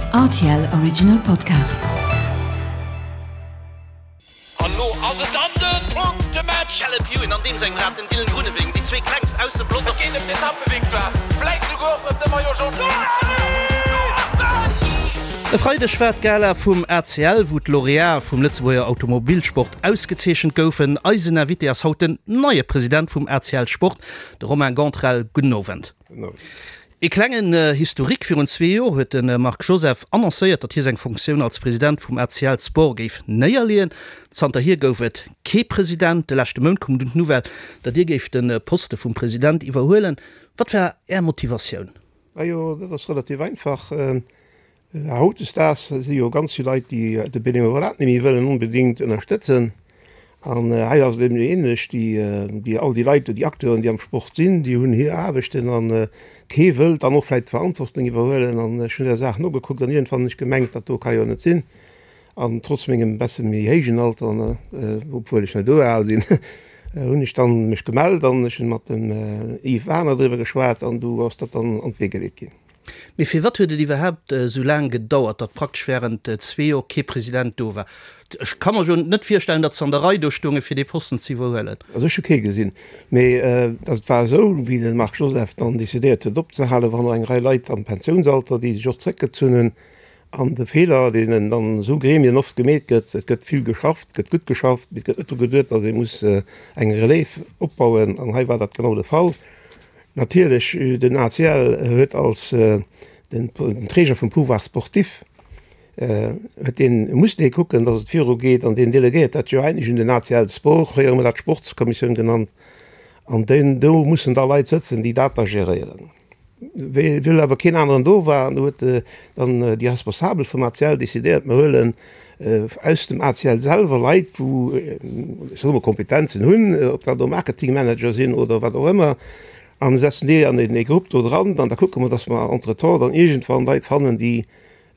Rtl Original Podcast. An lo ass et dann den Punktematch! Caleb Ewan an deem sengem Rad, den Dylan Groenewegen, déi zwee klengst aus dem Pelotong. Et geet ëm d'Etappevictoire, vläit souguer och ëm de Maillot Jaune. E Freideg war d'Gala vum ACL, wou d'Laureatë vum Lëtzebuerger Automobilsport ausgezeechent goufen. Eisen Invité ass haut den neie President vum ACL Sport, de Romain Gantrel. Gudden Owend. Ee klengen Historique, Virun zwee Joer huet de Marc Joseph annoncéiert, datt hie seng Funktioun als President vum ACL Sport géif néierleeën. Zanterhier gouf et kee President. De leschte Mount koum dunn d'Nouvelle, datt Dir géift de Poste vum President iwwerhuelen. Wat war Är Motivatioun? Majo, dat ass relativ einfach. Hautdesdaags si jo ganz vill Leit, déi de Benevolat net méi wëllen onbedéngt ënnerstëtzen. An hei ass et eben ähnlech, déi, all déi Leit, déi Acteuren, déi am Sport sinn, déi hunn hir Aarbechten an kee wëllt dann och vläicht d'Verantwortung iwwerhuelen. An ech hunn der Saach nogekuckt an iergendwann hunn ech gemengt, dat do ka jo net sinn. An trotz mengem besse méi héijen Alter, obwuel ech net esou al sinn, hunn ech dann mech gemellt an ech hunn mat dem Yves Wagner driwwer geschwat an du ass dat dann an d'Wee geleet ginn. Mee firwat huet et iwwerhaapt esou laang gedauert, datt praktesch während zwee Joer kee President do war? Ech ka mer jo net virstellen, datt se an der Rei do stoungen, fir dee Posten ze iwwerhuelen. Also ech hu kee gesinn. Mee et war esou, wéi de Marc Joseph dann decidéiert huet opzehalen, waren och eng Rei Leit am Pensiounsalter, déi sech och zréckgezunn hunn. An de Feeler, deen an esou Gremien oft gemeet gëtt, et gëtt vill geschafft, et gëtt gutt geschafft, mee et gëtt net dru geduet, datt ee muss eng Relève opbauen. An hei war dat genau de Fall. Natierlech, den ACL huet als den Träger vum Pouvoir sportif, huet deen, muss dee kucken, datt et virugeet an deen delegéiert dat jo eigentlech un den ACL Sport, fréier hu mer dat Sportskommissioun genannt, an deen, do mussen da Leit sëtzen, déi dat da geréieren. Well awer keen aneren do war, huet dann déi Responsabel vum ACL decidéiert, mer huelen aus dem ACL selwer Leit, wou, ech soe mol, Kompetenzen hunn, ob dat elo Marketingmanager sinn oder wat och ëmmer, a setzen déi an ee Grupp do dran an da kucke mer, datt mer entretemps dann iergendwann Leit fannen, déi,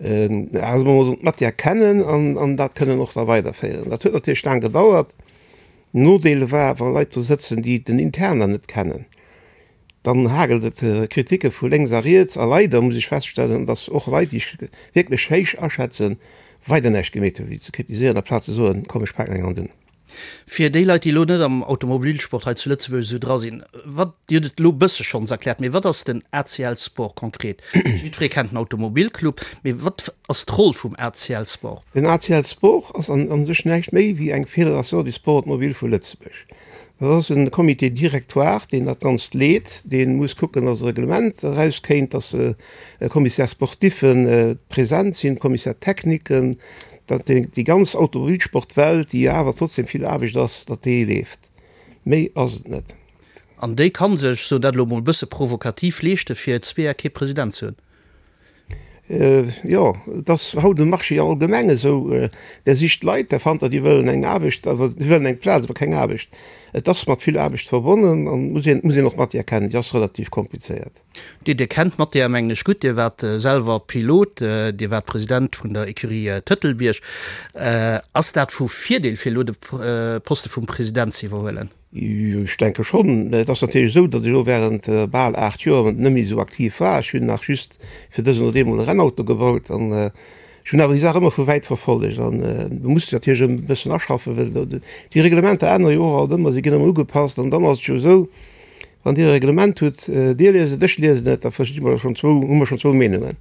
soe mer mol, d'Matière kennen an dat kënnen och da weiderféieren. Dat huet natierlech laang gedauert. Nodeel war, wa Leit do sëtzen, déi den Interner net kennen, Dann hagelt et Kriticke vu lénks a riets a leider muss ech feststellen, dass och Leit, déi ech wierklech héich aschätzen, weider näischt gemeet hunn, wéi ze kritiséieren, aplaz ze soen, komm ech paken eng Hand un. Fir déi Leit, déi elo net am Automobilsport hei zu Lëtzebuerg esou dra sinn, wat, Dir hutt et elo e bësse schonns erkläert, mee wat ass den ACL Sport konkret? Jiddweree kennt den Automobilclub, mee wat ass d'Roll vum ACL Sport? Den ACL Sport ass an sech näischt méi wéi eng Fédération du sport automobile vu Lëtzebuerg. Dat ass e Comité directoire, deen dat Ganzt leet, dee muss kucken, dass e Reglement erauskéint, dass Commissaires sportiffen present sinn, Commissaires techniquen, datt déi ganz Automobilsportwelt, déi jo awer trotzdem vill Aarbecht ass, datt déi leeft. Méi ass et net. An déi ka sech, ech soen dat elo emol e bësse provokativ, leeschte fir zwee Jar kee President ze hunn. Jo, et ass haut um Marché allgemeng esou, Der sicht Leit, der fannt der, déi wëllen eng Aarbecht, awer déi wëllen eng Plaz, awer keng Aarbecht. Et ass mat vill Aarbecht verbonnen an muss een, muss een och d'Matière kennen, déi ass relativ komplizéiert. Dir, Dir kennt d'Matière, mengen ech, gutt. Dir waart selwer Pilot, Dir waart President vun der Ecurie Tëtelbierg. Ass dat vu Virdeel, fir elo de Poste vum President ze iwwerhuelen? Ech denke schonn. Et ass natierlech esou, datt ech elo während bal 8 Joer net méi esou aktiv war. Ech hunn nach just fir dësen oder deemol e Rennauto gebaut an ech hunn awer déi Saach ëmmer vu wäit verfollegt. An du muss dech natierlech e bëssen aschaffen, well déi Reglementer ännere jo och alt ëmmer, se ginn ëmmer ugepasst. An dann ass et jo esou, wann Dir e Reglement hutt, Dir liest et, ech liesen et, da versti mer schonn zwou, hu mer schonn zwou Meenungen.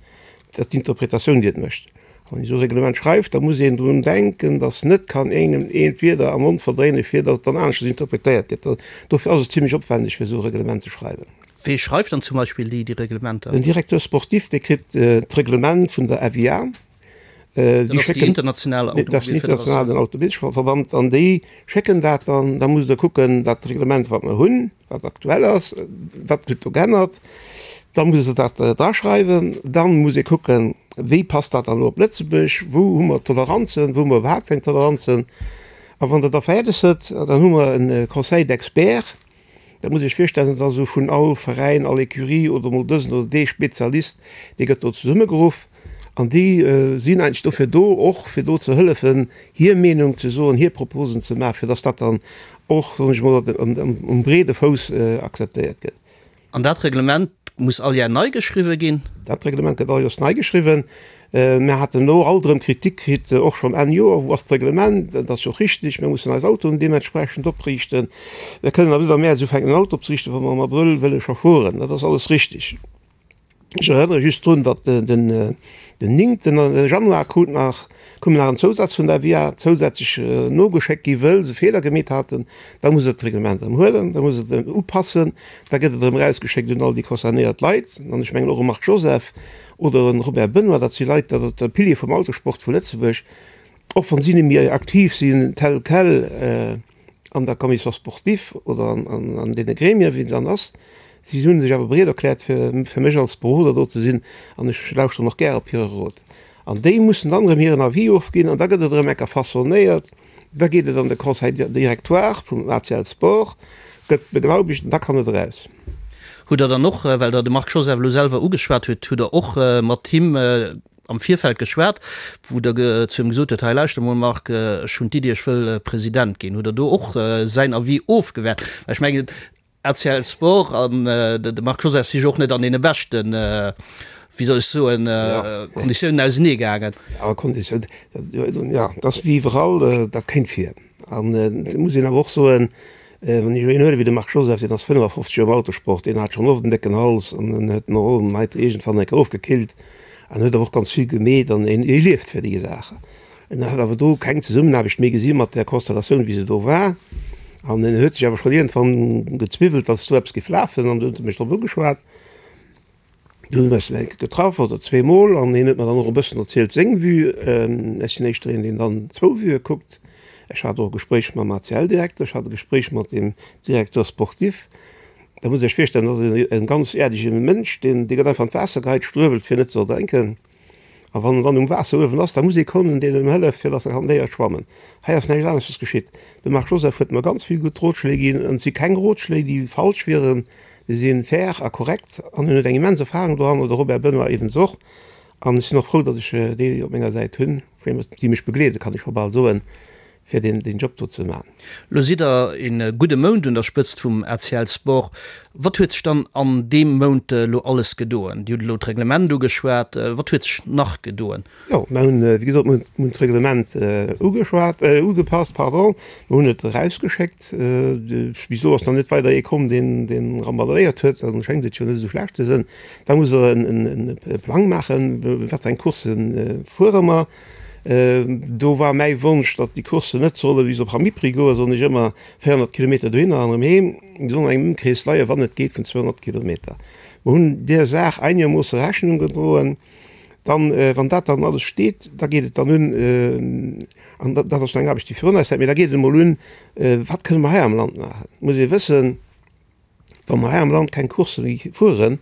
Dat ass d'Interpretatioun, déi et mécht. Wann een esou e Reglement schreift, da muss een drun denken, datt net kann engem een d'Wierder am Mond verdréinen, fir datt et dann aneschters interpretéiert gëtt. Dofir ass et zimlech opwändeg, fir esou e Reglement ze schreiwen. Wee schreift dann zum Beispill déi Reglementer? Den Directeur sportif, dee kritt d'Reglement vun der FIA. Dat ass déi international Automobilfederatioun. Dat ass den internationalen Automobilverband. An déi schécken dat dann. Da musst Der kucken, dat Reglement, wat mer hunn, wat aktuell ass, wat huet do geännert, da muss e dat draschreiwen, dann muss ee kucken, wéi passt dat dann elo op Lëtzebuerg, wou hu mer Toleranzen, wou hu mer iwwerhaapt keng Toleranzen. A wann Der da fäerdeg sidd, dann hu mer e Conseil d'experts, dat muss Iech virstellen, dat ass esou vun all Veräin, all Ecurie oder emol dësen oder dee Spezialist, dee gëtt do zesummegeruff an déi sinn eigentlech dofir do, och fir do ze hëllefen, hir Meenung ze soen, hir Proposen ze maachen, fir datt dat dann och, soen ech emol, um breede Fouss akzeptéiert gëtt. An dat Reglement muss all Jar nei geschriwwe ginn? Dat Reglement gëtt all Joers nei geschriwwen. Mir haten elo alt erëm Kritik kritt, och schonn Enn Joer, wou ass d'Reglement? Dat ass jo och richtig, mir mussen eis Autoen deementsprechend opriichten. Mir kënnen awer net am Mäerz ufänken en Auto opzeriichten, wa mer am Abrëll wëlle scho fueren. Dat ass alles richtig. Ech erënnere just drun, datt den néngten Januar krut nach, koum nach en Zousaz vun der FIA zousätzlech nogeschéckt gi wëll se Feeler gemeet haten. Da muss et d'Reglement erëm huelen, da muss et upassen, da gëtt et erëm erausgeschéckt un all déi concernéiert Leit. An ech mengen och e Marc Joseph oder e Robert Benoy, dat si Leit, dat ass de Pilier vum Autosport vu Lëtzebuerg, och wann si net méi aktiv sinn tel quel, an der Commission sportive oder an deene Gremien, wéi et dann ass. Si hu sech awer bereet erkläert, fir fir mech als Beroder do ze sinn, an ech lauschteren och gär op hire Rot. An déi mussen dann erëm hiren Avis ofginn, an da gëtt et erëm enker façonnéiert, da geet et an de Conseil directoire vum ACL Sport, gëtt beglaubegt an da kann et eraus. Hutt Der dann och, well Der de Marc Joseph elo selwer ugeschwat hutt, hutt Der och mat him am Virfeld geschwat, wou Der zu him gesot hutt, hei lauschter mol Marc, ech hunn d'Iddi, ech wëll President ginn. Hutt Der do och säin Avis ofgewäert? Well ech mengen, ACL Sport an de Marc Joseph si jo och net an deene beschten, wéi soll ech soen, Konditiounen ausenee gaangen. Jo, Konditiounen, jo, dat ass wéi iwwerall, dat kéint vir. An et muss een awer och soen, Wann ech elo een huelen wéi de Marc Joseph, deen ass 55 Joer am Autosport, deen hat schonn oft en décken Hals an en huet en och um Heite iergendwann eng Kéier ofgekillt an huet awer och ganz vill gemeet an en e lieft fir déi Saachen. En hat awer do keng Zesummenaarbecht méi gesi mat där Konstellatioun wéi se do war an en huet sech awer schonn iergendwann gezwiwwelt, datt do eppes géif lafen an du huet e mech drop ugeschwat. Du hunn mer eis eng Kéier getraff, oder zweemol, an hien huet mer dann och e bëssen erzielt seng Vue. Ech sinn éischter een, deen dann zwou Vuë kuckt. Ech hat och e Gespréich mam ACL-Direkter, ech hat e Gespréich mat dem Directeur sportif. Da musst Dir Iech virstellen, dat ass e ganz äerdege Mënsch, deen, dee gëtt einfach an d'Waasser geheit, struewelt fir net ze erdrénken. A wann en dann um Waasser uewen ass, da muss ee kommen, deen em hëlleft, fir datt e kann léiere schwammen. Hei ass näischt aneschters geschitt. De Marc Joseph huet mer ganz vill gutt Rotschléi ginn, an et si keng Rotschléi, déi falsch wieren, déi si fair a korrekt an en huet eng immens Erfahrung doranner, de Robert Benoy iwwens och. An ech sinn och frou, datt ech déi op menger Säit hunn, déi mech begleeden, kann ech scho bal soen, fir deen deen Job do ze man. Lo sidd der een gudde Mount un der Spëtzt vum ACL Sport. Wat huet sech dann an deem Mount elo alles gedoen? Dir hutt elo d'Reglement ugeschwat. Wat huet sech nach gedoen? Jo, mer hunn, wéi gesot, mer hunn d'Reglement ugeschwat, ugepasst, pardon. Mer hunn et erausgeschéckt. Bis elo ass nach net weider ee komm, deen deen rambaléiert huet. Dann schéngt et jo net esou schlecht ze sënn. Da muss der en e Plang maachen, wat fir eng Courssen fuere mer. Do war mäi Wonsch, datt déi Courssen net solle bis op Hamipri goen, soen ech ëmmer, 400 Kilometer dohinner an erëm heem. Déi sollen an engem Ëmkrees leien, wann et geet, vun 200 Kilometer. Mer hunn där Saach einegermoosse Rechnung gedroen. Dann, wann dat dann alles steet, da geet et dann un, an dat ass nach eng Aarbecht, déi virun eis läit, mee da geet et emol un, wat kënne mer hei am Land maachen. Et muss ee wëssen, Wa mer hei am Land keng Coursse méi fueren,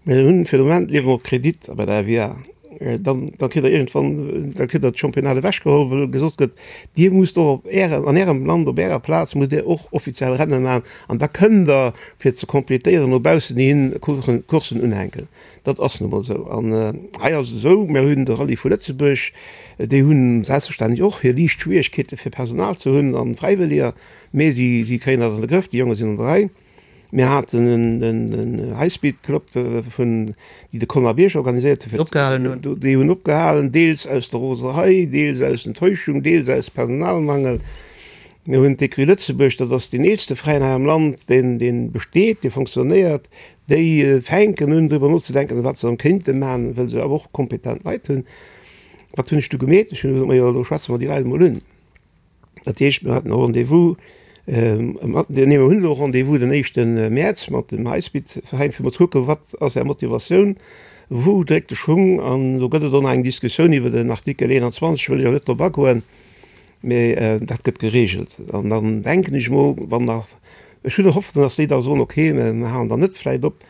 mir hunn fir de Moment liewe mer op Kredit bei der FIA, dann da kritt der iergendwann, da kritt der d'Championnat ewechgeholl, well gesot gëtt, Dir musst och op Ärem, an Ärem Land, op Ärer Plaz musst Dir och offiziell Renne maachen an da kënnt Der, fir ze completéieren, no baussen hin Courssen unhänken. Dat ass nu mol esou. An hei ass et esou, mir hunn de Rallye vu Lëtzebuerg, déi hunn selbstverständlech och hir liicht Schwierigkeete fir Personal ze hunn a Fräiwëlleger, Mee si kréien dat an de Grëff, déi Jonge sinn an der Rei. Mir haten en High-Speed Club vun, déi de Colmar Bierg organiséiert huet. Opgehalen hunn. Déi hunn opgehalen, deels aus der Roserei, deels aus Enttäuschung, deels aus Personalmangel. Mir hunn d'Écurie Lëtzebuerg, dat ass deen eelste Veräin hei am Land, deen, deen besteet, dee fonctionnéiert. Déi fänken un driwwer nozedenken, wat se erëm kéinte maachen, wëll se awer och kompetent Leit hunn. Wat hunn ech du gemeet? Ech hunn gesot, majo, elo schwätze mer déi Leit emol un. Dat heescht, mir haten e Rendez-vous, nee, mir hunn elo e Rendez-vous den éischte Mäerz mat dem Highspeed-Veräin, fir mol ze kucken, wat ass Är Motivatioun, wou dréckt de Schung. An do gëtt et och nach eng Diskussioun iwwer den Artikel 21, wëll ech awer net drop agoen, mee dat gëtt geregelt. An dann denken ech mol, wann nach, ech hunn Hoffnung, datt déi da soen, okay, mir halen dann net vläicht op.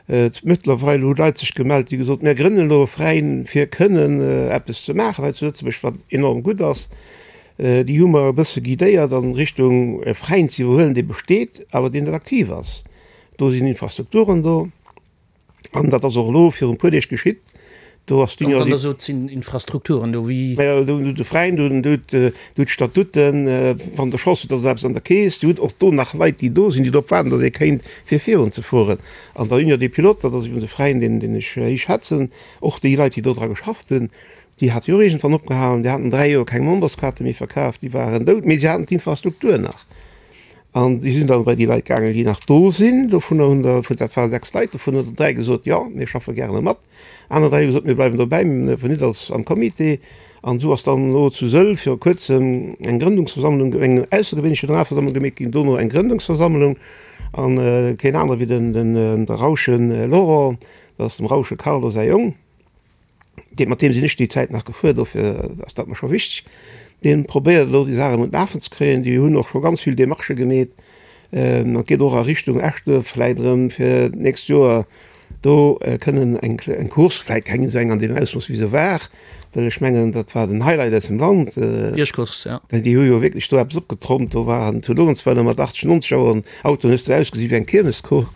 Mëttlerweil hu Leit sech gemellt, déi gesot, mir grënnen elo e Veräin, fir kënnen eppes ze maachen hei zu Lëtzebuerg, wat enorm gutt ass. Déi hu mer e bësse guidéiert an Richtung e Veräin ze iwwerhuelen, dee besteet, awer deen net aktiv ass. Do sinn Infrastrukturen do. An dat ass och elo virun e puer Deeg geschitt. Do ass d'Union. Wann Der sot, et sinn Infrastrukturen do, wéi. Majo, do hutt de Veräin, do hutt d'Statuten, wann Der Chance hutt, ass eppes an der Keess. Dir hutt och do nach Leit, déi do sinn, déi drop waarden, datt ee kéint, fir virunzefueren. An der Union des Pilotes, dat ass iwwregens e Veräin, deen, deen ech héich schätzen, och déi Leit, déi do dra geschafft hunn, déi hate jo och iergendwann opgehalen. Déi haten 3 Joer keng Memberskaarte méi verkaf, déi waren dout, mee se haten d'Infrastruktur nach. An déi sinn dann bei déi Leit gaangen, déi nach do sinn. Dovunner hunn der, dat ware 6 Leit, dovun hunn der 3 gesot, jo, mir schaffe gärene mat. Aner 3 hu gesot, mir bleiwen dobäi, mir dierfen net als am Comité. An esou ass dann elo zu Sëll viru kuerzem eng Grëndungsversammlung, eng aussergewéinlech Generalversammlung gemeet ginn, dono eng Grëndungsversammlung. An keen anere wéi den, den de Rauschen Laurent, dat ass dem Rausche Carlo säi Jong, dee, mat deem sinn ech déi Zäit nach gefuer, dofir ass dat mer scho wichteg, dee probéiert elo déi Saach erëm un d'Lafen ze kréien. Déi hunn och scho ganz vill Demarchë gemeet. An et geet och a Richtung Eschduerf vläit erëm fir d'nächst Joer Do kënnen eng eng Course, vläit keng esou eng an deem Ausmooss wéi se war, well ech mengen dat war den Highlight aus dem Land. Biergcourse, ja. Déi hu jo wierklech do eppes opgetrompt. Do waren zu Luerenzweiler mat 80, 90 Auer Autoen, hues de ausgesi wéi eng Kiermescourse.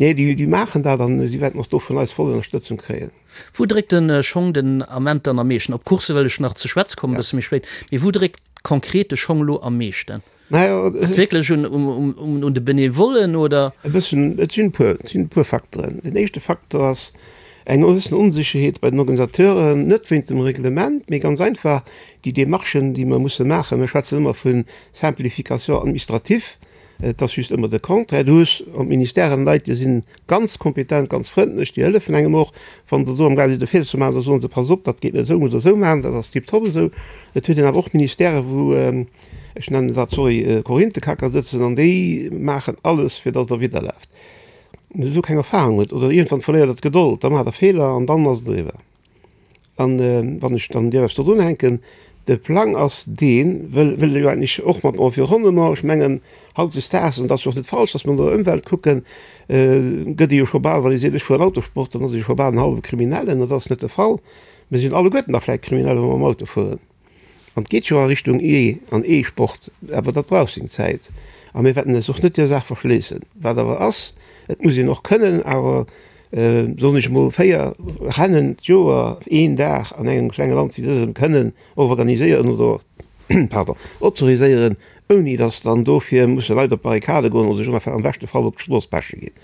Nee, déi déi maachen dat an si wäerten och do vun eis voll Ënnerstëtzung kréien. Wou dréckt de Schong den Ament dann am meeschten? Op d'Course wëll ech nach ze schwätze kommen, e bësse méi spéit. Mee wou dréckt konkret de Schong elo am meeschten? Ass et wierklech un de Benevollen oder? E bëssen, et sinn e puer, et sinn e puer Facteuren. Den éischte Facteur ass eng gewëssen Onsécherheet bei den Organisateuren, net wéint dem Reglement, mee ganz einfach déi Demarchen, déi mer musse maachen. Mir schwätzen ëmmer vu Simplification administrative, et ass just ëmmer de Contraire. Du hues an d'Ministèren Leit, déi sinn Ganz kompetent, ganz frëndlech, déi hëllefen engem och. Wann der do am gaang sidd e Feeler ze maachen, da soen se, Pass op, dat geet net esou, musst der esou maachen, dat ass tiptop esou. Et huet een awer och Ministèrë wou, ech nennen dat, sorry, Korinthekacker sëtzen an déi maachen alles, fir datt der widderlaaft. Wann der esou keng Erfahrung hutt oder iergendwann verléiert der d'Gedold, da maacht der Feeler an dann ass et eriwwer. An wann ech dann dierf eppes do drunhänken, de Plang ass deen, wëll wëll jo eigentlech och mat Environnement, ech mengen hautdesdaags, an dat ass jo och net falsch, datt mer no der Ëmwelt kucken, gëtt ee jo scho bal, wann ee seet ech fueren Autosport, dann ass ee scho bal en hallwe Kriminellen, an dat ass net de Fall. Mir sinn alleguerten da vläicht Kriminell, wa mer mam Auto fueren. An et geet jo a Richtung E an E-Sport, awer dat brauch seng Zäit. A mir wäerten eis och net där Saach verschléissen. Wat awer ass, et muss een och kënnen awer, soen ech emol, 4 Rennen d'Joer, een Dag an engem klenge Land wéi dësem kënnen organiséieren oder, pardon, autoriséieren, ouni datt dann dofir musse Leit op d'Barrikade goen oder sech am beschte Fall op d'Strooss peche ginn.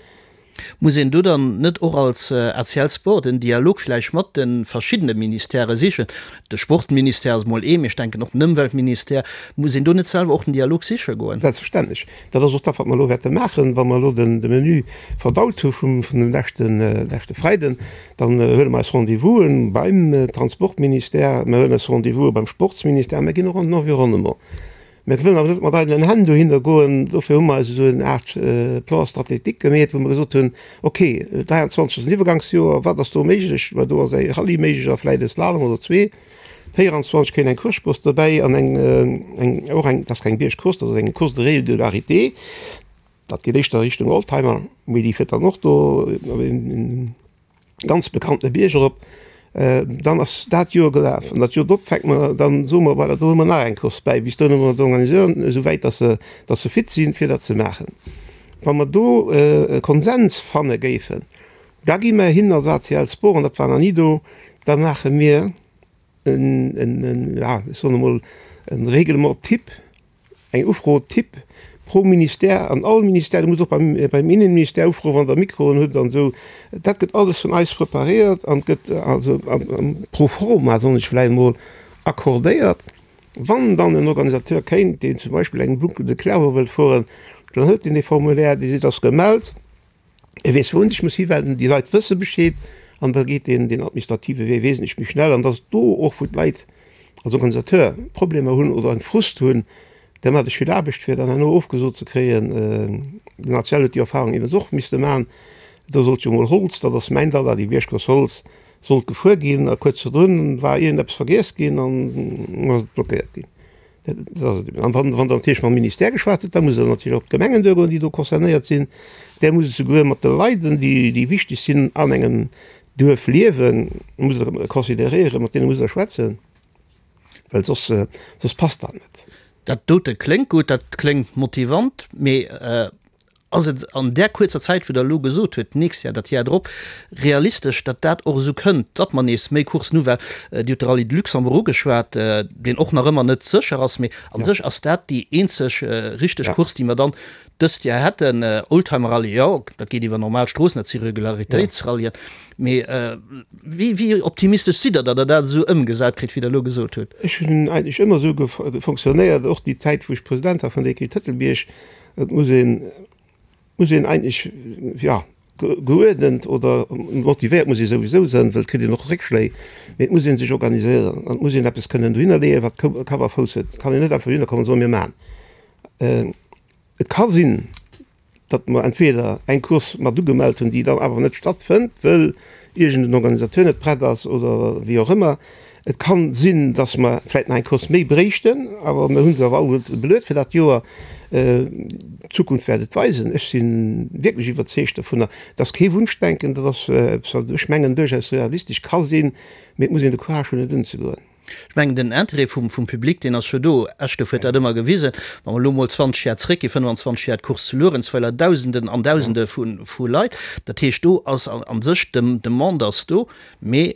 Muss een do dann net och als ACL Sport en Dialog vläicht mat de verschiddene Ministèrë sichen? De Sportministère ass emol ee, mee ech denken och den Ëmweltministère. Muss een do net selwer och den Dialog siche goen? Selbstverständlech. Dat ass och dat, wat mer elo wäerte maachen, wa mer elo de Menu verdaut hu vum dem leschte Freiden. Dann huele mer eis Rendez-vouse beim Transportministère, mer huelen eis Rendez-vouse beim Sportsministère, mer ginn och an den Environnement. Mir wëllen awer net mat eidelen Hänn dohinner goen. Dofir hu mer eis esou eng Aart Plan stratégique gemeet, wou mer gesot hunn, ok, 23 ass en Iwwergangsjoer, wat ass do méiglech? Well do ass e Rallye méiglech a vläicht e Slalom oder zwee. 24 kéint eng Course dobäi an eng, eng, och eng, dat ass keng Biergcourse, dat ass eng Course de régularité. Dat geet éischter Richtung Oldtimer, mee déi fiert dann och do op een ganz bekannte Bierg erop. Dann ass dat Joer gelaf an dat Joer drop fänke mer, dann soe mer, voilà, do hu mer nach eng Course bäi. Bis dohin hu mer d'Organisateuren esou wäit, dass se, dass se fit sinn, fir dat ze maachen. Wa mer do e Konsens fanne géifen, da gi mer hin als ACL Sport, an dat war nach ni do, da maache mir en, en, ja, ech soen emol, e Règlement type, Eng Ufro type pro Ministère an all Ministère, Dir musst och beim beim Innenministère ufroen, wann Der Mikroen hutt an esou. Dat gëtt alles vun eis preparéiert an gëtt also pro forma, soen ech vläicht emol, accordéiert. Wann dann en Organisateur kéint, deen zum Beispill eng Boucle de Clairvaux wëllt fueren, dann hëlt deen dee Formulaire, Dir sidd ass gemellt. E weess wou en sech muss hiwenden, déi Leit wësse Bescheed an da geet deen deen administrative Wee wesentlech méi schnell. An dass do och wou d'Leit als Organisateur Problemer hunn oder eng Frust hunn, da maacht ech vill Aarbecht fir dann herno ofgesot ze kréien. Den ACL huet déi Erfahrung iwwens och misste maachen. Do sollt jo mol Holz, dat ass mäin Dada, déi Biergcourse Holz, sollt gefuer ginn a kuerz virdrun war iergendeppes vergiess ginn an ass et blockéiert ginn. An wann Der natierlech mam Ministère geschwat hutt, da musst Der natierlech och op d'Gemengen duergoen, déi do concernéiert sinn. Där musst esouguer mat de Leiden, déi wichteg sinn an engem Duerf liewen, musst Der consideréieren, mat deene musst Der schwätzen, well soss, soss passt dat net. Dat dote kléngt gutt, dat kléngt motivant, mee. Ass et an där kuerzer Zäit, wou Der elo gesot hutt, d'nächst Jahr, dat Jar drop, realistesch, datt dat och esou kënnt, datt mer nees méi Courssen hu? Well Dir hutt de Rallye de Luxembourg ugeschwat, deen och nach ëmmer net sécher ass, mee a sech ass dat déi eenzeg richteg Course, déi mer dann dëst Jar hätten. Oldtimer-Rallye, jo, dat geet iwwer normal Stroossen, dat si Regularitéitsrallyen. Mee wéi, wéi optimistesch sidd Der, datt Der dat esou ëmgesat kritt, wéi Der elo gesot hutt? Ech hunn eigentlech ëmmer esou fonctionnéiert, och déi Zäit, wou ech President war vun der Écurie Tëtelbierg, Et muss een, muss een eigentlech, jo, geuerdent oder motivéiert muss ee souwisou sënn, well et kritt een och Réckschléi, mee et muss ee sech organiséieren an et muss een eppes kënnen dohinner leeën, wat Kapp a Fouss huet. Et kann een net einfach dohinner kommen an soen, mir maachen. Et ka sinn, datt mer entweder eng Course mat ugemellt hunn, déi dann awer net stattfënnt, wëll iergend en Organisateur net prett ass oder wéi och ëmmer. Et kann sinn, dass mer vläit nach eng Course méi bréichten, awer mir hu se awer alleguerte beluet fir dat Joer. D'Zukunft wäert et weisen. Ech si wierklech iwwerzeegt dovunner. Et ass kee Wunschdenken, dat ass eppes, wat ech mengen duerchaus realistesch ka sinn, mee et muss een de Courage hunn, et unzegoen. Ech mengen, den Interêt vum Public, deen ass jo do. Eschduerf huet dat ëmmer gewisen. Wa mer elo emol 20 Jar zréckginn, 25 Jar, d'Course zu Luerenzweiler, Dausenden an Dausende vu Leit. Dat heescht, do ass a sech, d'Demande ass do, mee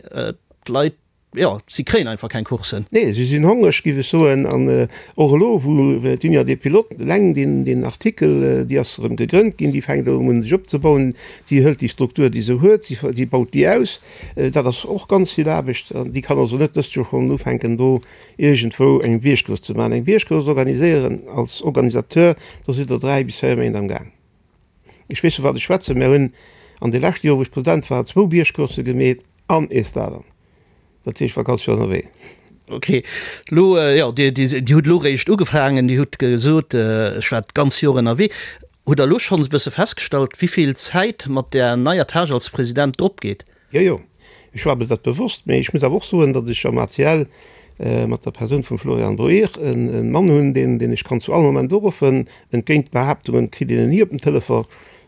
d'Leit, jo, si kréien einfach keng Coursen. Nee, si sinn hongreg, géif ech soen. An och elo, wou d'Union des Pilotes eleng deen Artikel, déi ass erëm gegrënnt ginn, déi fänkt erëm un sech opzebauen, si hëlt déi Struktur, déi se huet, si baut déi aus. Dat ass och ganz vill Aarbecht. An déi kann also net dëst Joer schonn ufänken, do iergendwou eng Biergcourse ze maachen. Eng Biergcourse organiséieren als Organisateur, do sidd Der 3 bis 4 Méint am Gaang. Ech weess, vu wat ech schwätzen. Mir hunn an de leschte Joer, wou ech President war, zwou Biergcoursse gemeet an ee Slalom. Dat heescht, ech war ganz vill ënnerwee. Ok, elo, jo, Dir, Dir hutt elo eréischt ugefaangen. Dir hutt gesot, ech war d'ganz Joer ënnerwee. Hutt Der elo schonns e bësse festgestallt, wéi vill Zäit mat där neier Tâche als President dropgeet? Jo, jo, ech war mir dat bewosst, mee ech muss awer och soen, datt ech am ACL mat der Persoun vum Florian Boehr e Mann hunn, deen, deen ech kann zu all Moment uruffen. Entgéint Behaaptungen kritt een en ni op den Telefon.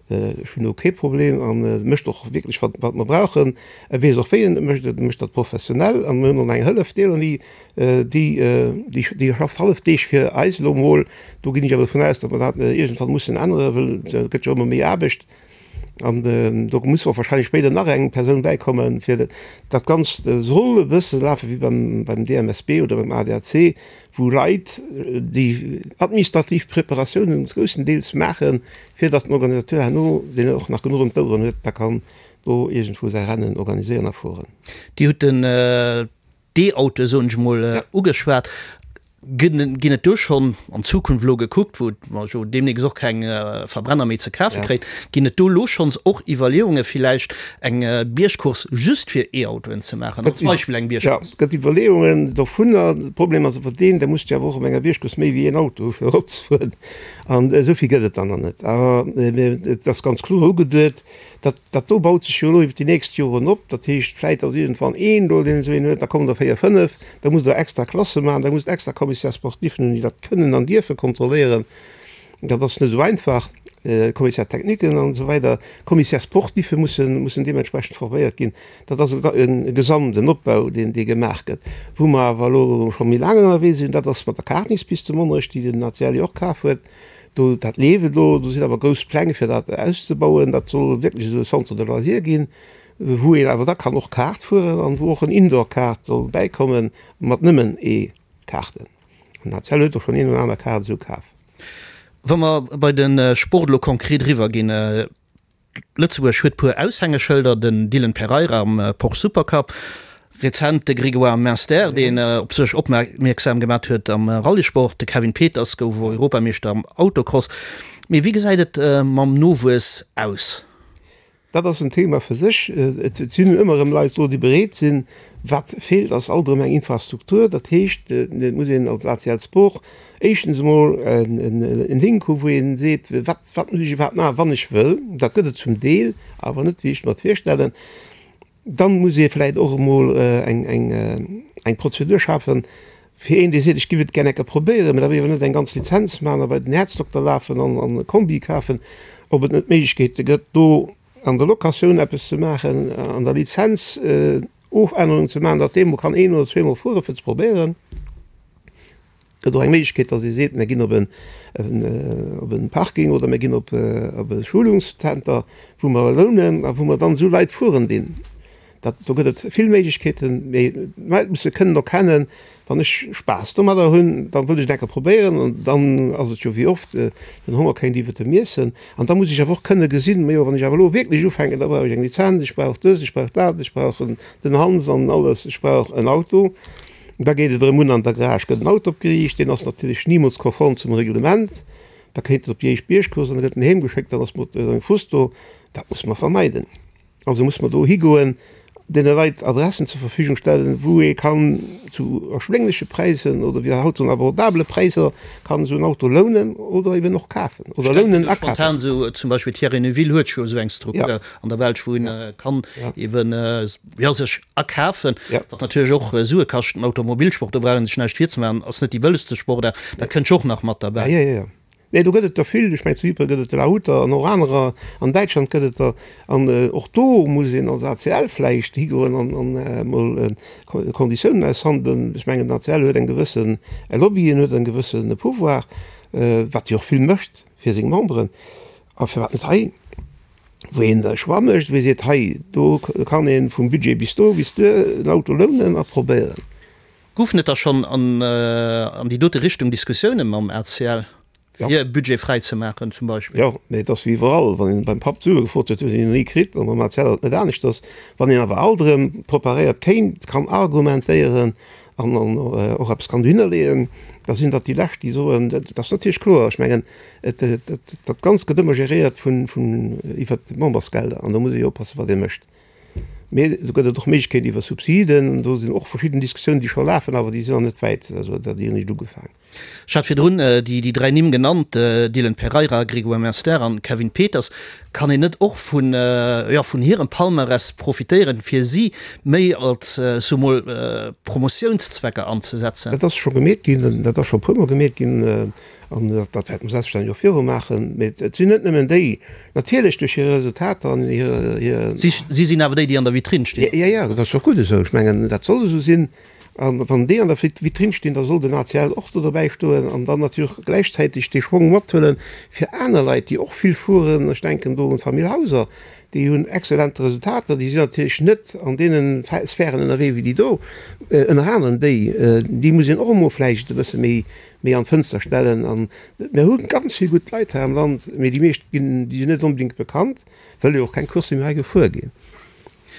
Ech hunn do kee Problem an e mécht och wierklech, wat, wat mer brauchen. E weess och, wéi en et mécht, e mécht dat professionell. An mir hunn och nach eng Hëllef, d'Eloni, déi, déi, déi schafft hallef Deeg fir eis elo emol. Do ginn ech awer dovun aus, datt mer dat iergendwann mussen änneren, well et gëtt jo ëmmer méi Aarbecht. An do muss och wahrscheinlech spéider nach eng Persoun bäikommen, fir dat Ganzt soll e bësse lafe wéi beim, beim DMSB oder beim ADAC, wou Leit déi administrativ Preparatiounen groussendeels maachen, fir datt den Organisateur herno, deen och nach genuch ëm d'Oueren huet, da kann do iergendwou säi Rennen organiséieren a fueren. Dir hutt den d'E-Autoe soen ech emol, ugeschwat. Ginn et do schonn an d'Zukunft elo gekuckt, wou mer jo deemnächst och keng Verbrenner méi ze kafe kréien, ginn et do elo schonns och Iwwerleeunge villäicht eng Biergcourse just fir E-Autoen ze maachen, als Beispill eng Biergcourse? Jo, et gëtt Iwwerleeungen dovunner. De Problem ass awer deen, da muss de awer och op enger Biergcourse méi wéi een Auto hu fir eropzefueren an esou vill gëtt et dann nach net. Awer et ass ganz kloer ugeduet, Dat, dat do baut sech jo elo iwwer déi nächst Joren op. Dat heescht, vläit ass iergendwann een do, deen esou een huet, da kommen der véier, fënnef, da musst Der extra Klasse maachen, da musst Der extra Commissaire-sportifen hunn, déi dat kënnen an dierfe kontrolléieren. Dat ass net esou einfach. Commissaire-techniquen an esou weider. Commissaire-sportife mussen, mussen deementsprechend forméiert ginn. Dat ass e gesamten Opbau, deen, dee gemaach gëtt. Wou mer awer elo scho méi laang ënnerwee sinn, dat ass mat der Kartingspist zu Monnerech, déi den ACL jo och kaf huet. Do, dat leeft elo, do sinn awer grouss Pläng fir dat auszebauen. Dat soll wierklech esou e Centre de loisirs ginn, wou een awer da kann och Kaart fueren an wou och en Indoor-Kaart soll bäikommen mat nëmmen E-Kaarten. An ACL huet och schonn een oder aner Kaart esou kaf. Wa mer bei de Sport elo konkret eriwwerginn, Lëtzebuerg huet puer Aushängeschëlder, den Dylan Pereira am Porsche Supercup, rezent de Grégoire Munster, deen op sech opmierksam gemat huet am Rallyesport, de Kevin Peters gouf Europameeschter am Autocross. Mee wéi gesäit et mam Nowuess aus? Dat ass en Thema fir sech. Et sinn ëmmer erëm Leit do, déi bereet sinn. Wat feelt, ass alt erëm eng Infrastruktur. Dat heescht, et muss een als ACL Sport Éischtens emol en Link hu wou een seet, wat wat muss ech iwwerhaapt maachen, wann ech wëll. Dat gëtt et zum Deel, awer net wéi ech mer et virstellen. Dann muss ee vläicht och emol eng eng eng Prozedur schafen fir een dee seet, ech giff et gär enke probéieren, mä da wëll ech awer net eng ganz Lizenz maachen a bei den Häerzdokter lafen an an e Kombi kafen, ob et net Méiglechkeete gëtt do an der Locatioun eppes ze maachen, an der Lizenz Ofännerungen ze maachen, datt dee mol kann een oder zweemol fuere fir ze probéieren. Gëtt och eng Méiglechkeet, datt ee seet, mir ginn op en, op e Parking oder mir ginn op e Schulungszenter, wou mer lounen a wou mer dann esou Leit fueren dinn. Dat, do gëtt et vill Méiglechkeeten, mee d'Leit musse kënnen erkennen, wann ech Spaass domadder hunn, da wëll ech et eng Kéier probéieren an dann ass et jo wéi oft, den Honger kéint iwwert dem Iessen. An da muss ech awer och kënne gesinn, majo wann ech awer elo wierklech ufänken, da brauch ech eng Lizenz, ech brauch dës, ech brauch dat, ech brauch den Hans an alles, ech brauch en Auto. Da geet et erëm un, an der Garage gëtt en Auto opgeriicht, deen ass natierlech nimools konform zum Reglement. Da kéint en op déi éischt Biergcourse an da gëtt en heem geschéckt, dann ass mat sengem Frust do. Dat musse mer vermeiden. Also musse mer do higoen, deene Leit Adressen zur Verfügung stellen, wou ee kann zu erschwéngleche Präisen oder wéi haut soen abordabele Präisser kann esou en Auto lounen oder eben och kafen oder lounen a kafen. Spontan esou zum Beispill Thierry Neuville huet jo esou eng Struktur an der Belsch, wou een kann eben jo sech akafen, wat natierlech och Sue kascht. Den Automobilsport, do brauch een sech näischt virzemaachen, ass net déi bëllegste Sportaart, dat kënnt jo och nach mat derbäi. Jo, jo, jo. Nee, do gëtt et der vill. Ech mengen, zu Ypres gëtt et de Lahuter an och anerer. An Däitschland gëtt et der. An och do muss een als ACL vläicht higoen an emol Konditiounen aushandelen. Ech mengen, den ACL huet eng gewësse Lobby, en huet e gewësse Pouvoir, wat jo och vill mécht fir seng Memberen. A firwat net hei? wou een e Choix mécht, wou ee seet, hei do kann ee vum Budget bis do, bis duer en Auto lounen a probéieren. Goufen et da schonn an déi dote Richtung Diskussioune mam ACL, fir e Budget fräi ze maachen zum Beispill? Jo, mee et ass wéi iwwerall, wann een beim Papp Sue gefrot huet, huet een ni kritt, a mam ACL ass et net aneschters. Wann een awer alt erëm preparéiert kéint, kann argumentéieren an och eppes kann dohinner leeën, da sinn dat déi Lescht, déi soen, dat ass natierlech kloer, ech mengen, dat Ganzt gëtt ëmmer geréiert vun, iwwert d'Membersgelder an do muss ee jo oppassen, wat ee mécht. Mee do gëtt et och Méiglechkeeten iwwer Subsiden, do sinn och verschidden Diskussiounen, déi scho lafen, awer déi sinn nach net wäit, also dat déi hunn eréischt ugefaang. Ech hat virdrun déi 3 Nimm genannt, Dylan Pereira, Grégoire Munster an Kevin Peters. Kann een net och vun, jo, vun hirem Palmarès profitéieren, fir si méi als, soe mol, Promotiounszwecker anzesetzen? Dat ass scho gemeet ginn, dat ass scho e puermol gemeet ginn an dat wäerte mer selbstverständlech och viru maachen. Mee et sinn net nëmmen déi, natierlech duerch hir Resultater an hir, hir. Si sinn awer déi, déi an der Vitrinn stinn. Jo, jo, dat ass och gutt esou. Ech mengen, dat soll esou sinn. A wann déi an der Vitrinn stinn, da soll den ACL och do dobäi stoen an dann natierlech och gläichzäiteg dee Schwong mathuelen fir aner Leit, déi och vill fueren. Ech denken do un d'Famill Hauser, déi hunn exzellent Resultater. Déi sinn natierlech net an deene Sphären ënnerwee wéi déi do. Ënner anerem déi, déi muss een och emol vläicht e bësse méi, méi an d'Fënster stellen. An mir hu ganz vill gutt Leit hei am Land, mee déi meescht ginn, déi sinn net onbedéngt bekannt, wëll jo och keng Coursse méi hei gefuer ginn.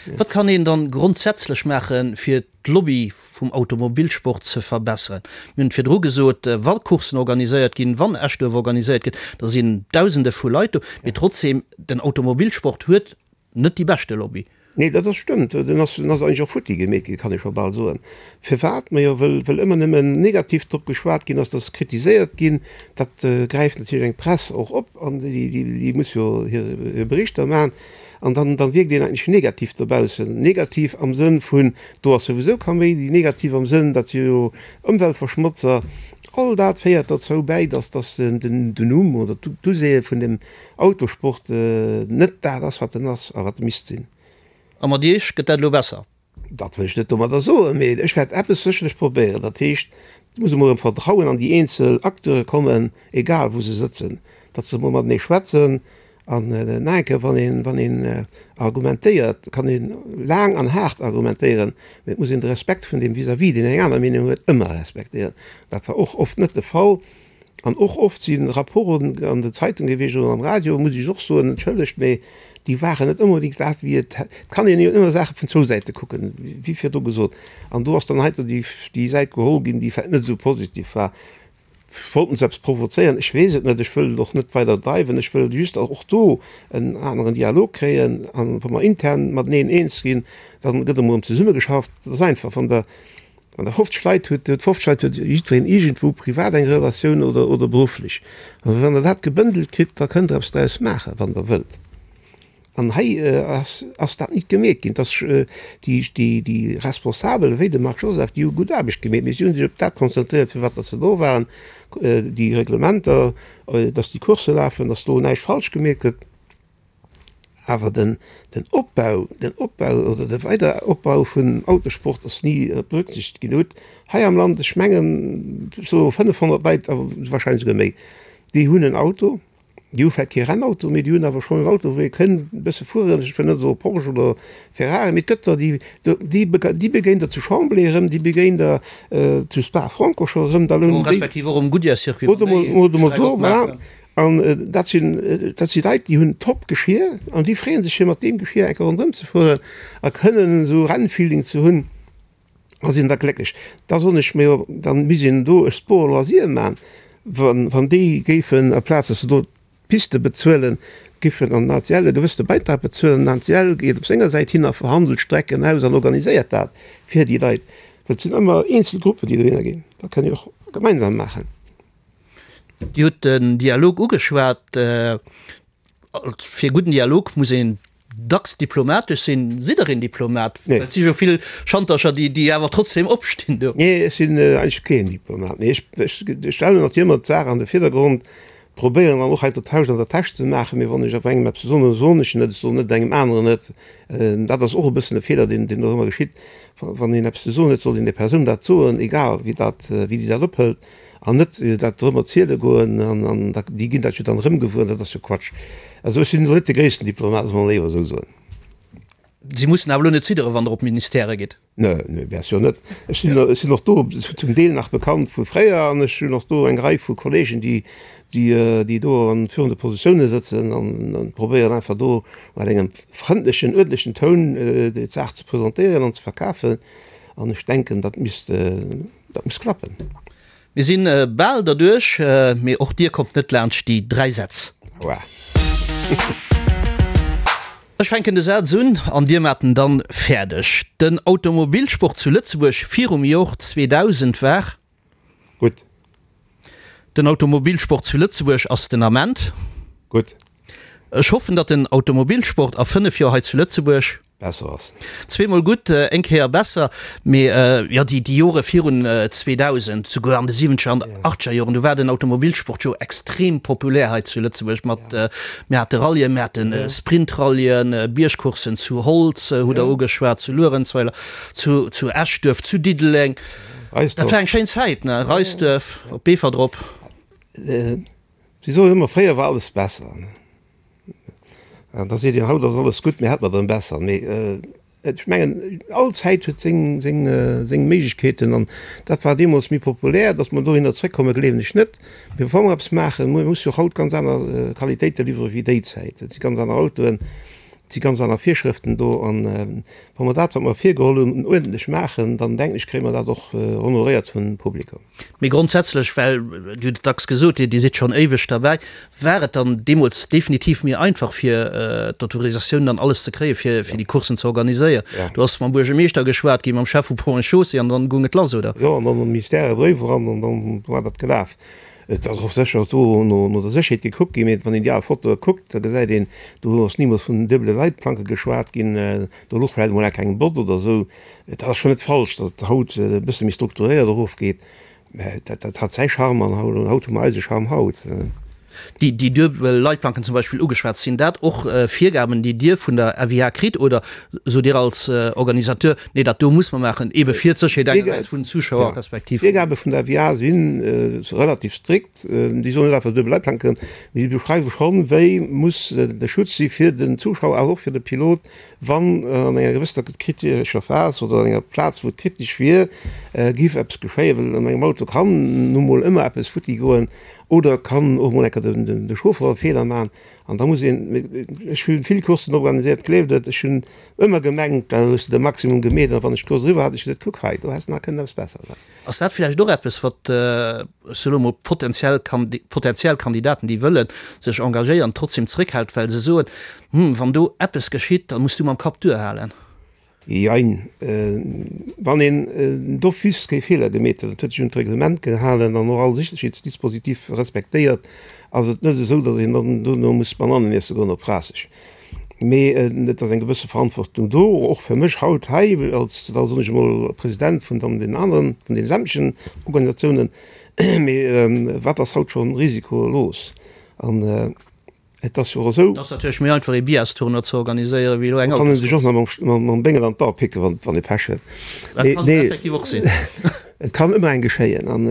Wat kann een dann grondsätzlech maachen, fir d'Lobby vum Automobilsport ze verbesseren? Mir hunn et virdru gesot, wa Courssen organiséiert ginn, wann Eschduerf organiséiert gëtt, da sinn Dausende vu Leit do. Mee trotzdeem, den Automobilsport huet net déi beschte Lobby. Nee, dat ass stëmmt. Den ass, den ass eigentlech och futti gemeet ginn, kann ee scho bal soen. Firwat? Majo, wëll, wëll ëmmer nëmmen negativ drop geschwat ginn ass, dat ass kritiséiert ginn. Dat gräift natierlech eng Press och op an déi, déi, déi muss jo hir, hir Berichter maachen. An dann, dann wierkt een eigentlech negativ dobaussen. Negativ am Sënn vun, do ass souwisou Kaméidi, negativ am Sënn, dat si jo Ëmweltverschmotzer. All dat féiert derzou bäi, dass, dass den, den Numm oder d'Usehe vun dem Autosport net dat ass, wat en ass a wat e misst sinn. A mat Iech gëtt dat elo besser? Dat wëll ech net domadder soen, mee ech wäert eppes sécherlech probéieren. Dat heescht, et muss emol erëm Vertrauen an déi eenzel Acteure kommen, egal wou se sëtzen, datt se emol matenee schwätzen. An nach eng Kéier, wann een, wann een argumentéiert, kann ee laang an haart argumentéieren, mee et muss een de Respekt vun deem vis-à-vis, deen eng aner Meenung huet, ëmmer respektéieren. Dat war och oft net de Fall. An och oft si Rapporten an de Zeitunge gewiescht oder am Radio, muss ech och soen, entschëllegt, mee déi waren net onbedéngt dat, wéi et, et kann een jo ëmmer Saache vun zwou Säite kucken, wéi virdu gesot. An do ass dann heiansdo déi, déi Säit geholl ginn, déi vläicht net esou positiv war. Wollten se eppes provozéieren? Ech weess et net. Ech wëll et och net weider dreiwen. Ech wëll just och do en aneren Dialog kréien. An wa mer intern mateneen eens ginn, da gëtt emol erëm zesummegeschafft. Dat ass einfach, wann Der Wann Der 50 Leit hutt, huet 50 Leit huet jiddwereen iergendwou privat eng Relatioun oder, oder berufflech. A wann Der dat gebëndelt kritt, da kënnt Der eppes draus maachen, wann Der wëllt. An hei ass, ass dat nit gemeet ginn. Dass déi, déi, déi Responsabel, wéi de Marc Joseph, déi hu gutt Aarbecht gemeet, mee si hu sech op dat konzentréiert, fir wat datt se do waren, déi Reglementer, dass déi Coursse lafen, dass do näischt falsch gemeet gëtt. Awer den Opbau, den Opbau oder de Weideropbau vun Autosport ass ni berücksichtegt ginn. Hutt hei am Land, ech mengen, esou 500 Leit, awer wahrscheinlech esouguer méi, déi hunn en Auto. Déi hu vläicht kee Rennauto, mee déi hunn awer schonn en Auto, wou ee kënnt e bësse fueren. Ech wëll net soe Porsche oder Ferrari, mee et gëtt der, déi, déi begéint der zu Chambley erëm, déi begéint der zu Spa-Francorchamps erëm. Da lounen déi. Respektiv och um Goodyear-Circuit, wann déi Streck opmaachen. An dat sinn, dat si Leit, déi hunn Top-Geschir an déi freeë sech, fir mat deem Geschir eng Kéier ronderëm ze fueren a kënnen esou Rennfeeling ze hunn a sinn da glécklech. Da soen ech mir jo, da misst een do e Sport loisir man, wann, wann déi géifen, aplaz dass se do d'Piste bezuelen, giffen an den ACL e gewëssene Beitrag bezuelen. Den ACL geet op senger Säit hin a verhandelt Strecken aus an organiséiert dat fir déi Leit, well et sinn ëmmer eenzel Gruppen, déi dohinner ginn. Dat kënne jo och gemeinsam maachen. Dir hutt den Dialog ugeschwat. Fir e gudden Dialog muss een dacks diplomatesch sinn. Sidd Der een Diplomat? Well et si jo vill Schantercher, déi awer trotzdem opstinn do. Nee, ech sinn eigentlech keen Diplomat. Mee ech stellen natierlech ëmmer d'Saach an de Virdergrond, probéieren dann och hei d'Tausch an der Täsch ze maachen. Mee wann ech awer engem eppes soen, da soen ech en et. Ech soen net engem aneren et. Dat ass och e bëssen e Feeler, deen do ëmmer geschitt. Wann een eppes ze soen huet, soll een där Persoun dat soen, egal wéi dat, wéi déi dat ophëlt. An net dat erëm erziele goen, an déi ginn dat jo dann erëm gewuer, dat ass jo Quatsch. Also ech sinn elo net de gréissten Diplomat, soll mer léiwer esou soen. Si mussen awer elo net zidderen, wann Der op d'Ministèrë gitt? Nee, nee, bien sûr net. Ech sinn, ech sinn och do zum Deel nach bekannt vu fréier an ech hunn och do eng Rei vu Kollegen, déi, déi, déi do an führende Positioune sëtzen an probéieren einfach do mat engem frëndlechen, uerdentlechen Toun déi Saach ze presentéieren an ze verkafen. An ech denken, dat misst, dat muss klappen. Mir sinn bal derduerch, mee och dir kommt net laanscht déi 3 Sätz. Aua. Ech fänken de Saz un an dir maacht en dann fäerdeg. Den Automobilsport zu Lëtzebuerg virum Jor 2000 war. Gutt. Den Automobilsport zu Lëtzebuerg ass den Ament. Gutt. Ech hoffen, datt den Automobilsport a 5 Joer hei zu Lëtzebuerg. Besser ass. Zweemol gutt, eng Kéier besser. Mee jo, déi Jore virun 2000, souguer an de siwwenzeger an achteger Joren, do war den Automobilsport jo extrem populär hei zu Lëtzebuerg mat, mir hate Rallyen, mir hate Sprintrallyen, Biergcourssen zu Holz, hutt Der ugeschwat, zu Luerenzweiler, zu Eschduerf, zu Diddeleng. Dat war eng schéin Zäit, ne? Reisduerf, op Beefort erop. Si soen ëmmer, fréier war alles besser. An da seet een, haut ass alles gutt, mee hätt mer dann besser. Mee ech mengen, all Zäit huet seng, seng, seng Méiglechkeeten an dat war deemools méi populär. Datt mer dohinner zréckkommen, gleewen ech net. Mee wa mer eppes maachen, mir musse jo och haut ganz aner Qualitéite liwwere wéi déi Zäit. Et si ganz aner Autoen, et si ganz aner Virschrëften do. An wa mer dat, wat mer virgeholl hunn, uerdentlech maachen, dann denken ech, kréie mer dat och honoréiert vum Publikum. Mee grondsätzlech, well Dir hutt et dacks gesot, Dir sidd schonn éiweg derbäi, war et dann deemools definitiv méi einfach fir d'Autorisatiounen an alles ze kréien, fir déi Courssen ze organiséieren. Do ass mam Buergermeeschter geschwat ginn, mam Chef vu Ponts et Chaussées an dann goung et lass, oder? Jo, an dann am Ministère e Bréif eran an dann war dat gelaf. Et ass och sécher do no der Sécherheet gekuckt ginn, mee wann een déi al Fotoe kuckt, da gesäit een, do ass nimools vun duebele Leitplanke geschwat ginn, do louch vläicht emol eng Bott oder esou. Et ass schonn net falsch, datt et haut e bësse méi strukturéiert erofgeet, mä dat dat hat säi Charme an haut haut hu mer eise Charme haut. Déi déi duebel Leitplanken zum Beispill ugeschwat, sinn dat och Virgaben, déi Dir vun der FIA kritt oder sot Dir als Organisateur, nee dat do muss mer maachen, eebe fir d'Sécherheet engersäits vun den Zuschauer respektiv. D'Virgabe vun der FIA si relativ strikt. Déi soen net einfach duebel Leitplanken, mee déi beschreiwe schonn, wéi muss de Schutz si fir den Zuschauer, awer och fir de Pilot, Wann an enger gewësser kritescher Phas oder an enger Plaz, wou et kritesch wier, géif eppes geschéien, well an engem Auto kann nu mol ëmmer eppes futti goen oder et kann och mol eng Kéier de Chauffer e Feeler maachen an da muss een, ech hu vill Courssen organiséiert, gleeft et, ech hunn ëmmer gemengt, da hues de de Maximum gemeet an wann ech d'Course eriwwer hat, ech gesot, kuck hei, do häss de nach kënnen eppes besser maachen. Ass dat villäicht och eppes, wat, ech soe lo mol, potentiell potentiell Kandidaten, déi wëlle sech engagéieren, trotzdem zréckhält, well se soen, Hm, wann do eppes geschitt, da muss du mam Kapp duerhalen? Jein. Wann een d'office kee Feeler gemeet huet, et huet sech un d'Reglement gehalen an och all Sécherheetsdispositif respektéiert, ass et net esou, datt een dann dono muss Banannen iesse goen op Raasseg. Mee et ass eng gewësse Verantwortung do, och fir mech haut hei als, da soen ech emol, President vun dann deenen aneren, vun deene sämtlechen Organisatiounen. Mee wat ass haut scho risikolos? An. Et ass jo och esou. Et ass natierlech méi einfach ee Biastournoi ze organiséieren, wéi elo eng Kann en sech och nach mam Béngel an d'Ae picken, wann ee Pech huet. Dat kann effektiv och sinn. Et kann ëmmer eng geschéien an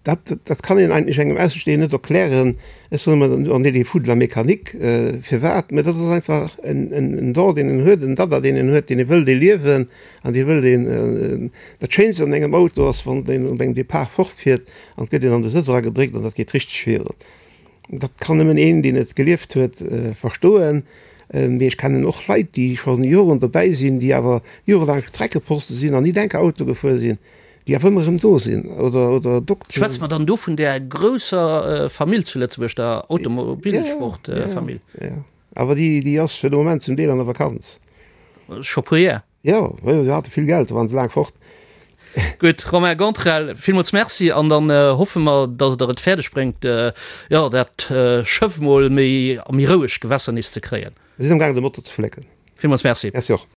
dat, dat kann een eigentlech engem Aussestehenden net erklären. Ech soen ëmmer, on est des fous de la mécanique. Firwat? Mä dat ass einfach en Don, deen een huet, en Dada, deen een huet, deen ee wëllt ee liewen an dee wëllt een. Dat Schéinst an engem Auto ass, wann een op engem Depart fortfiert an et gëtt een an de Sëtz eragedréckt an dat geet richteg virun. Dat kann nëmmen een, deen et gelieft huet, verstoen. Mee ech kennen och Leit, déi scho Joren dobäi sinn, déi awer jorelaang Streckeposte sinn an ni enker Auto gefuer sinn, déi awer ëmmer erëm do sinn. Oder, oder Dokteren. Schwätze mer dann do vun där grousser Famill zu Lëtzebuerg, der Automobilsportfamill? Jo, jo. Awer déi, déi ass fir de Moment zum Deel an der Vakanz. Scho puer Jar. Jo, jo, se hate vill Geld, do waren se laang fort. Gutt, Romain Gantrel, villmools Merci an dann hoffe mer, datt Der et fäerdeg bréngt, jo, dat Schëff mol méi a méi roueg Gewässer nees ze kréien. Mir sinn am gaangen de Motor ze flécken. Villmools Merci. Merci och.